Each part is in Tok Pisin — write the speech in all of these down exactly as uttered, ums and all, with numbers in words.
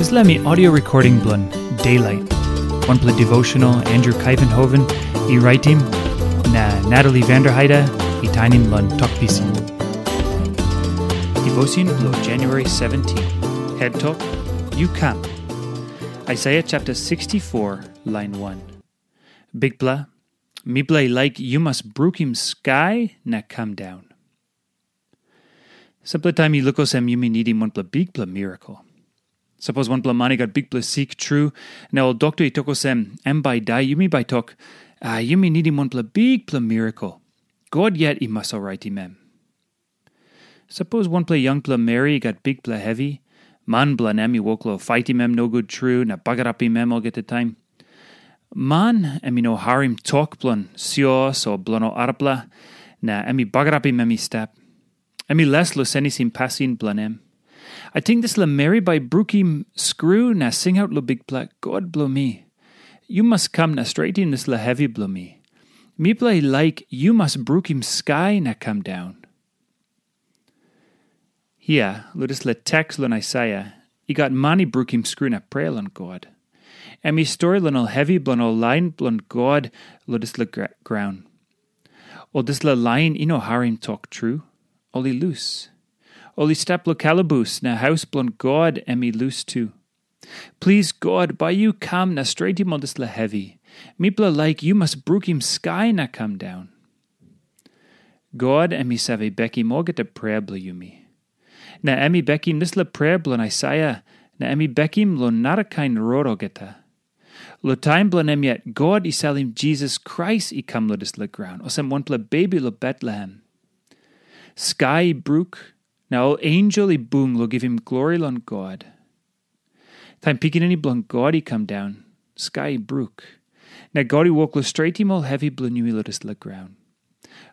Dispela mi audio recording bilong Daylight. Wanpela devotional Andrew Kaivenhoven i raitim, na Natalie Vanderheide i tainim long Tok Pisin. Devotion bilong January seventeen. Head Tok, Yu Kam. Isaiah chapter sixty-four, line one. Bikpela, mipela i laik yu mas brukim skai na kam daun. Sampela taim i luk olsem yumi nidim wanpela bikpela mirakel. Sapos wanpela man i gat bikpela sik tru, na ol dokta i tok olsem, em bai i dai, yumi bai tok, a, yumi nidim wanpela bikpela mirakel. God yet i mas oraitim em. Sapos wanpela yangpela meri i gat bikpela hevi, man bilong em i wok long faitim em nogut tru na bagarapim em olgeta taim. Man em i no harim tok bilong sios o bilong ol arapela, na em i bagarapim em i stap. Em i les long senisim pasin bilong em. Ating dispela meri bai brukim skru na singaut long Bikpela, God bilong mi. Yu mas kam na stretim dispela hevi bilong mi. Mipela i laik yu mas brukim skai na kam daun. Hia, long dispela teks long Aisaia, i gat man i brukim skru na prea long God. Em i stori long ol hevi bilong ol lain bilong God long dispela gra- graun. Ol dispela lain i no harim tok tru, ol i lus. Ol i stap long kalabus na haus bilong God em i lus tu. Plis God, bai yu kam na stretim ol dispela hevi. Mipela laik yu mas brukim skai na kam daun. God em i save bekim olgeta prea bilong yumi. Na em i bekim dispela prea bilong Aisaia, na em i bekim long narakain rot olgeta. Long taim bilong em yet, God i salim Jisas Krais i kam long dispela graun, olsem wanpela bebi long Betlehem. Skai i bruk, na ol ensel i bung long givim glori long God. Taim Pikinini bilong God i kam daun, skai i bruk. Na God i wok long stretim ol hevi bilong yumi long dispela graun.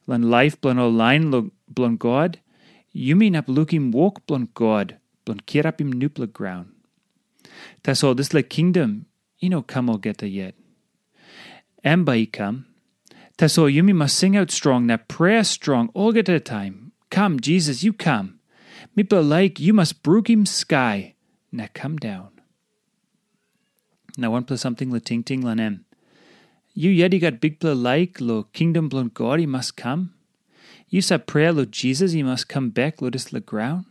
Long laip bilong ol lain bilong God, yumi inap lukim wok bilong God bilong kirapim nupela graun. Tasol dispela kingdom i no kam olgeta yet. Em bai i kam. Tasol yumi mas singaut strong na prea strong olgeta taim, "Kam, Jisas, yu kam. Mipela laik yu mas brukim skai na kam daun." Na wanpela samting long tingting long em. Yu yet i gat bikpela laik long kingdom bilong God i mas kam? Yu sap prea long Jisas i mas kam bek long dispela graun?